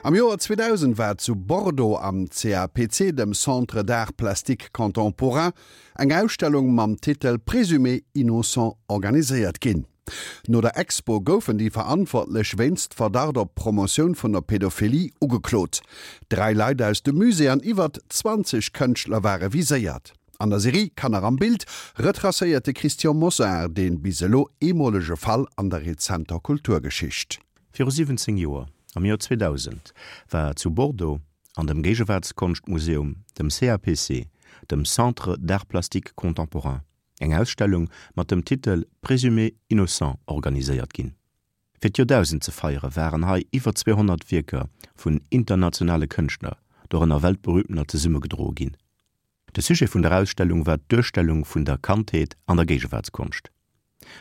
Am Joer 2000 war zu Bordeaux am CAPC, dem Centre d'Arts Plastiques Contemporains, eng Ausstellung mam Titel Présumés innocents organiséiert ginn. No der Expo goufen déi Verantwortlech wéinst Verdacht op Promotioun vun der Pädophilie ugeklot. Dräi Leit aus dem Musée an iwwert 20 Kënschtler ware viséiert. An der Serie Kanner am Bild retracéiert de Christian Mosar dee bis elo eemolege Fall an der rezenter Kulturgeschicht. Viru 17 Joer, am Joer 2000, war zu Bordeaux an dem Géigewaartskonschtmuseum, dem CAPC, dem Centre d'Arts Plastiques Contemporains, eng Ausstellung mat dem Titel Présumés innocents organiséiert ginn. Fir d'Joerdausend ze feiere waren hei iwwer 200 Wierker vun internationale Kënschtler, dorënner weltberühmtener, zesummegedroe ginn. De Sujet vun der Ausstellung war d'Duerstellung vun der Kandheet an der Géigewaartskonscht.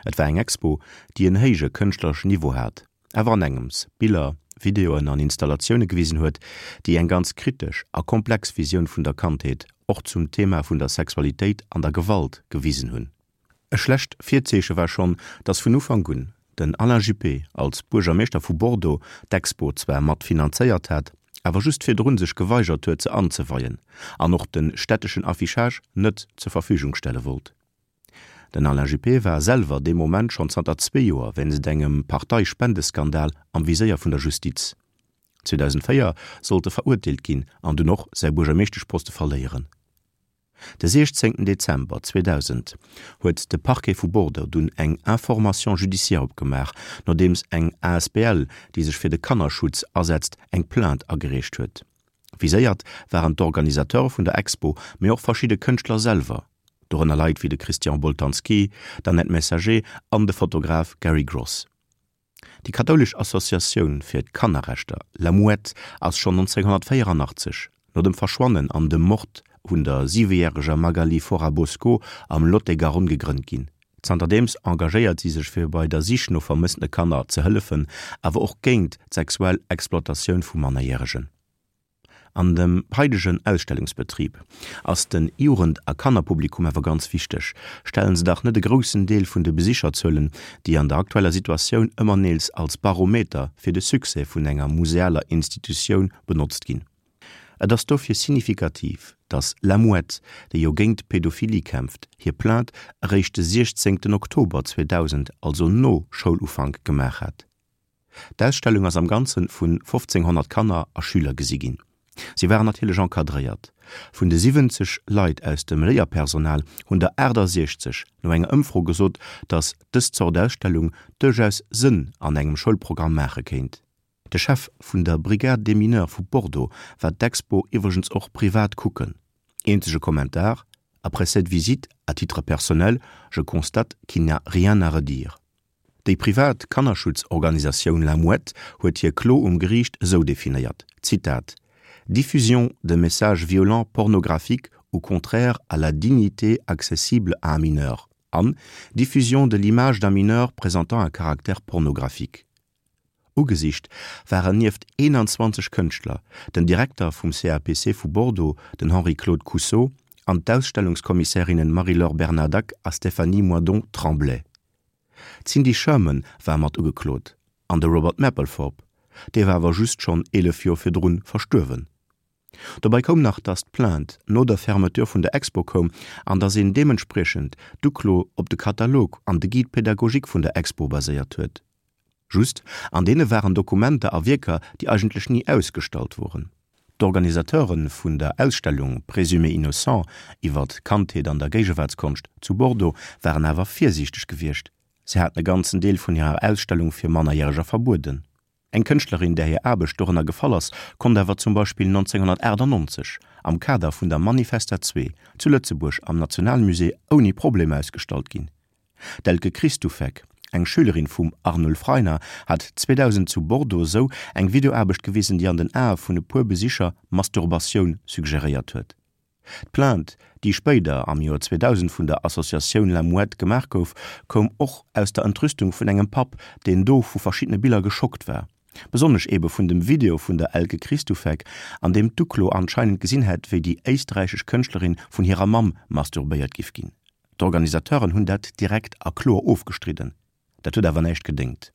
Et war eng Expo, déi en héije kënschtlereschen Niveau hat, awer an engems Biller, Videoen an Installatioune gewisen huet, déi eng ganz kritesch a komplex Visioun vun der Kandheet, och zum Thema vun der Sexualitéit an der Gewalt, gewisen hunn. E schlecht Virzeeche war schonn, datt vun Ufank un den Alain Juppé als Buergermeeschter vu Bordeaux d'Expo zwar mat finanzéiert hat, awer just virdrun sech geweigert huet se anzeweien an och de städteschen Affichage net zur Verfügung stelle wollt. Den Alain Juppé war selwer dee Moment schonn zanter zwee Joer wéinst engem Parteispendeskandal am Viséier vun der Justiz. 2004 sollt e verurteelt ginn an dunn och säi Buergermeeschteschposte verléieren. De 16 Dezember 2000 huet de Parquet vu Bordeaux dunn eng Information judiciaire opgemaach, nodeems eng asbl, déi sech fir de Kannerschutz asetzt, eng Plainte agereecht huet. Viséiert waren d'Organisateure vun der Expo, mee och verschidde Kënschtler selwer, dorënner Leit wéi de Christian Boltanski, d'Annette Messager an de Fotograf Gary Gross. Déi kathoulesch Associatioun fir d'Kannerrechter La Mouette ass schonn 1984, no dem Verschwannen an dem Mord un der siwejäreger Magali Forabosco am Lot-et-Garonne gegrënnt ginn. Zanterdeems engagéiert si sech fir bei der Sich no vermëssene Kanner ze hëllefen, awer och géint d'sexuell Exploitatioun vu Mannerjäregen. An dem haidegen Ausstellungsbetrib ass den Jugend a Kannerpublikum awer ganz wichteg. Stellen se dach net e groussen Deel vun de Besicherzuelen, déi an der aktueller Situatioun ëmmer neels als Barometer fir de Succès vun enger musealer Institutioun benotzt ginn. Et ass dofir signifikativ, datt La Mouette, déi jo géint d'Pedophilie kämpft, hir Plainte eréischt de 16 Oktober 2000, also no Schoulufank, gemaach hat. D'Ausstellung ass am Ganze vun 1.500 Kanner a Schüler gesi ginn. Si waren natierlech encadréiert. Vun de 70 Leit aus dem Léierpersonal hunn der 68 no enger Ëmfro gesot, datt dës Zort Ausstellung duerchaus Sënn an engem Schoulprogramm maache kéint. De Chef vun der Brigade des Mineurs vu Bordeaux war d'Expo iwwregens och privat kucken. Eenzege Kommentar, Après cette visite, à titre personnel, je constate qu'il n'y a rien à redire. Déi privat Kannerschutzorganisatioun La Mouette huet hir Klo um Geriicht esou definéiert, Zitat, Diffusion de messages violents pornographiques ou contraires à la dignité accessible à un mineur an Diffusion de l'image d'un mineur présentant un caractère pornographique. Ugesicht waren nieft 21 Kënschtler den Direkter vum CAPC vu Bordeaux, den Henri-Claude Cousseau, an d'Ausstellungskommissärinnen Marie-Laure Bernadac a Stéphanie Moidon-Tremblay. D'Cindy Sherman war mat ugeklot an de Robert Mapplethorpe, dee war awer just schonn 11 Joer virdrun verstuerwen. Dobäi koum nach, datt d'Plainte no der Fermeture vun der Expo koum an datt een deementspriechend d'Uklo op de Katalog an de Guide pédagogique vun der Expo baséiert huet. Just, an deene waren Dokumenter a Wierker, déi eigentlech ni ausgestallt woren. D'Organisateure vun der Ausstellung Présumés innocents iwwer d'Kandheet an der Géigewaartskonscht zu Bordeaux waren awer virsiichteg gewiescht, se haten e ganzen Deel vun hirer Ausstellung fir Mannerjäreger verbueden. Eng Kënschtlerin, där hir Aarbecht dorënner gefall ass, konnt awer zum Beispill 1998 am Kader vun der Manifesta 2 zu Lëtzebuerg am Nationalmusée ouni Problem ausgestallt ginn. D'Elke Kristufek, eng Schülerin vum Arnulf Rainer, hat 2000 zu Bordeaux sou eng Videoaarbecht gewisen, déi an den Ae vun e puer Besicher Masturbatioun suggeréiert huet. D'Plainte, déi spéider am Joer 2000 vun der Associatioun La Mouette gemaach gouf, koum och aus der Entrüstung vun engem Papp, deen do vu verschiddene Biller geschockt war. Besonnesch eebe vun dem Video vun der Elke Kristufek, an deem d'Uklo anscheinend gesinn hätt, wéi déi éisträichesch Kënschtlerin vun hirer Mamm masturbéiert giff ginn. D'Organisateuren hunn dat direkt a kloer ofgestridden. Dat huet awer näischt gedéngt.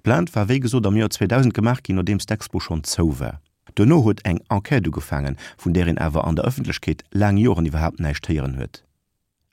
D'Plainte war wéi gesot am Joer 2000 gemaach ginn, nodeems d'Expo schonn zou war. Duerno huet eng Enquête ugefaangen, vun där een awer an der Ëffentlechkeet laang Joren iwwerhaapt näischt héieren huet.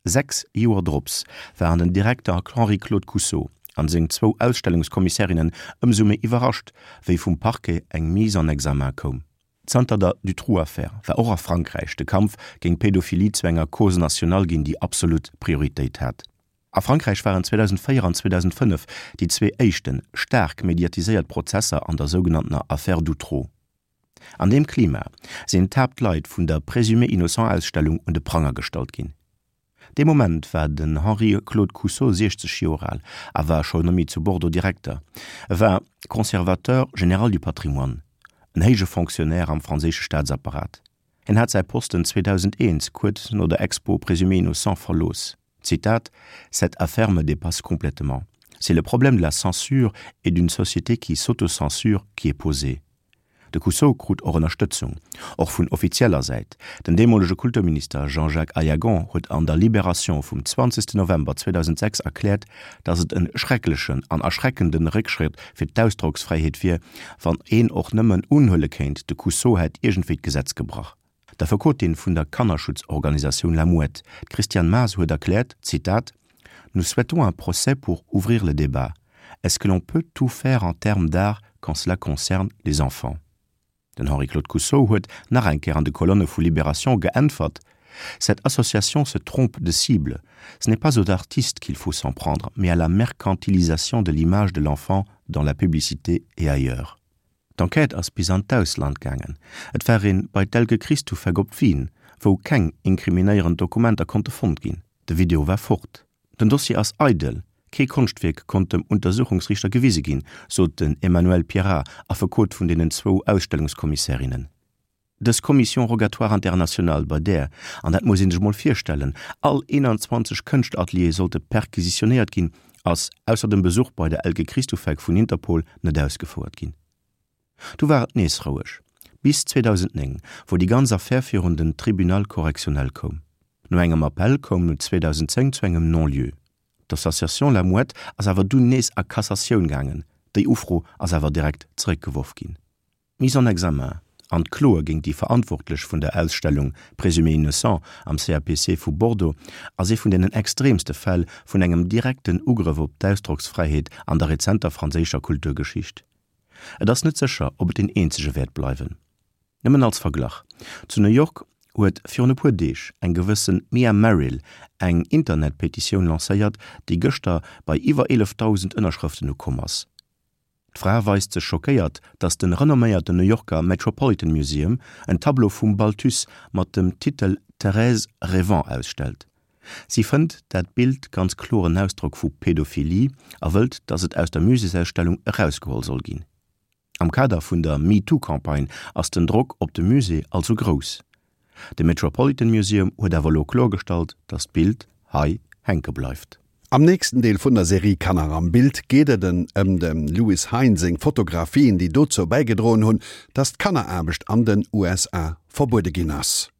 6 Joer drops waren den Direkter Henri-Claude Coussot an seng zwou Ausstellungskommissärinnen ëmsou méi iwwerrascht, wéi vum Parquet eng Mise en examen koum. Zanter der Dutroux-Affär war och a Frankräich de Kampf géint d'Pädophilie zu enger Cause nationale ginn, déi absolut Prioritéit hat. A Frankräich waren 2004 an 2005 déi zwee éischte staark mediatiséiert Prozesser an der sougenanntener Affaire Dutroux. An deem Klima sinn d'Haaptleit vun der Présumés innocents-Ausstellung un de Pranger gestallt ginn. Dee Moment war den Henri-Claude Coussot 60 Joer al a war scho nommé zu Bordeaux Direkter. E war Conservateur général du patrimoine, en héije Fonctionnaire am franséische Staatsapparat. Hien hat säi Posten 2001, kuerz no der Expo Présumés innocents, verlooss. Zitat, Cette affaire me dépasse complètement. C'est le problème de la censure et d'une société qui s'autocensure qui est posé. De Coussot krut och Ënnerstëtzung, och vun offizieller Säit. Den deemolege Kulturminister Jean-Jacques Aillagon huet an der Libération vum 20 November 2006 erkläert, datt et en schrecklechen an erschreckende Réckschrëtt fir d'Ausdrocksfräiheet wier, wann een och nëmmen unhuele kéint, de Coussot hätt iergendwéi d'Gesetz gebrach. D'Affekotin vun der Kannerschutzorganisatioun La Mouette, d'Christiane Maas, huet erkläert, Zitat, Nous souhaitons un procès pour ouvrir le débat. Est-ce que l'on peut tout faire en termes d'art quand cela concerne les enfants? Den Henri-Claude Coussot huet nach eng Kéier an de Kolonne vu Libération geäntwert, Cette association se trompe de cible. Ce n'est pas aux artistes qu'il faut s'en prendre, mais à la mercantilisation de l'image de l'enfant dans la publicité et ailleurs. D'Enquête ass bis an d'Ausland gaangen. Et war een bei d'Elke Kristufek op Wien, wou keng inkriminéierend Dokumenter konnte fonnt ginn. De Video war fort. Den Dossier ass eidel, kee Konschtwierk konnt dem Untersuchungsriichter gewise ginn, sot den Emmanuel Pierrat, Affekot vun deenen zwou Ausstellungskommissärinnen. Dës Commission rogatoire internationale, bei där, an dat muss ee sech mol virstellen, all 21 Kënschterateliere sollte perquisitionéiert ginn, ass, ausser dem Besuch bei der Elke Kristufek vun Interpol, net ausgefouert ginn. Du war et nees roueg, bis 2009, wou déi ganz Affär virun den Tribunal correctionnel koum. No engem Appell koum et 2010 zu engem Non-lieu. D'Association La Mouette ass awer dunn nees a Cassatioun gaangen, déi Ufro ass awer direkt zeréckgeworf ginn. D'Mise en examen an d'Kloe géint déi Verantwortlech vun der Ausstellung Présumés innocents am CAPC vu Bordeaux ass ee vun deenen extreemste Fäll vun engem direkten Ugrëff op d'Ausdrocksfräiheet an der rezenter franséischer Kulturgeschicht. Et ass net sécher, ob et deen eenzege wäert bleiwen. Nëmmen als Verglach, Zu New York huet virun e puer Deeg eng gewësse Mia Merrill eng Internetpetitioun lancéiert, déi gëschter bei iwwer 11.000 Ënnerschrëften ukomm ass. D'Fra weist sech schockéiert, datt de renomméierten New Yorker Metropolitan Museum en Tableau vum Balthus mat dem Titel Thérèse rêvant ausstellt. Si fënnt dat Bild ganz kloer en Ausdrock vu Pädophilie a wëllt, datt et aus der Muséesausstellung erausgeholl soll ginn. Am Kader vun der MeToo-Campagne ass den Drock op de Musée also grouss. De Metropolitan Museum huet awer elo kloergestallt, datt d'Bild hei hänke bleift. Am nächsten Deel vun der Serie Kanner am Bild geet et en ëm dem Lewis Hine seng Fotografien, déi dozou bäigedroen hunn, datt d'Kanneraarbecht an den USA verbuede ginn ass.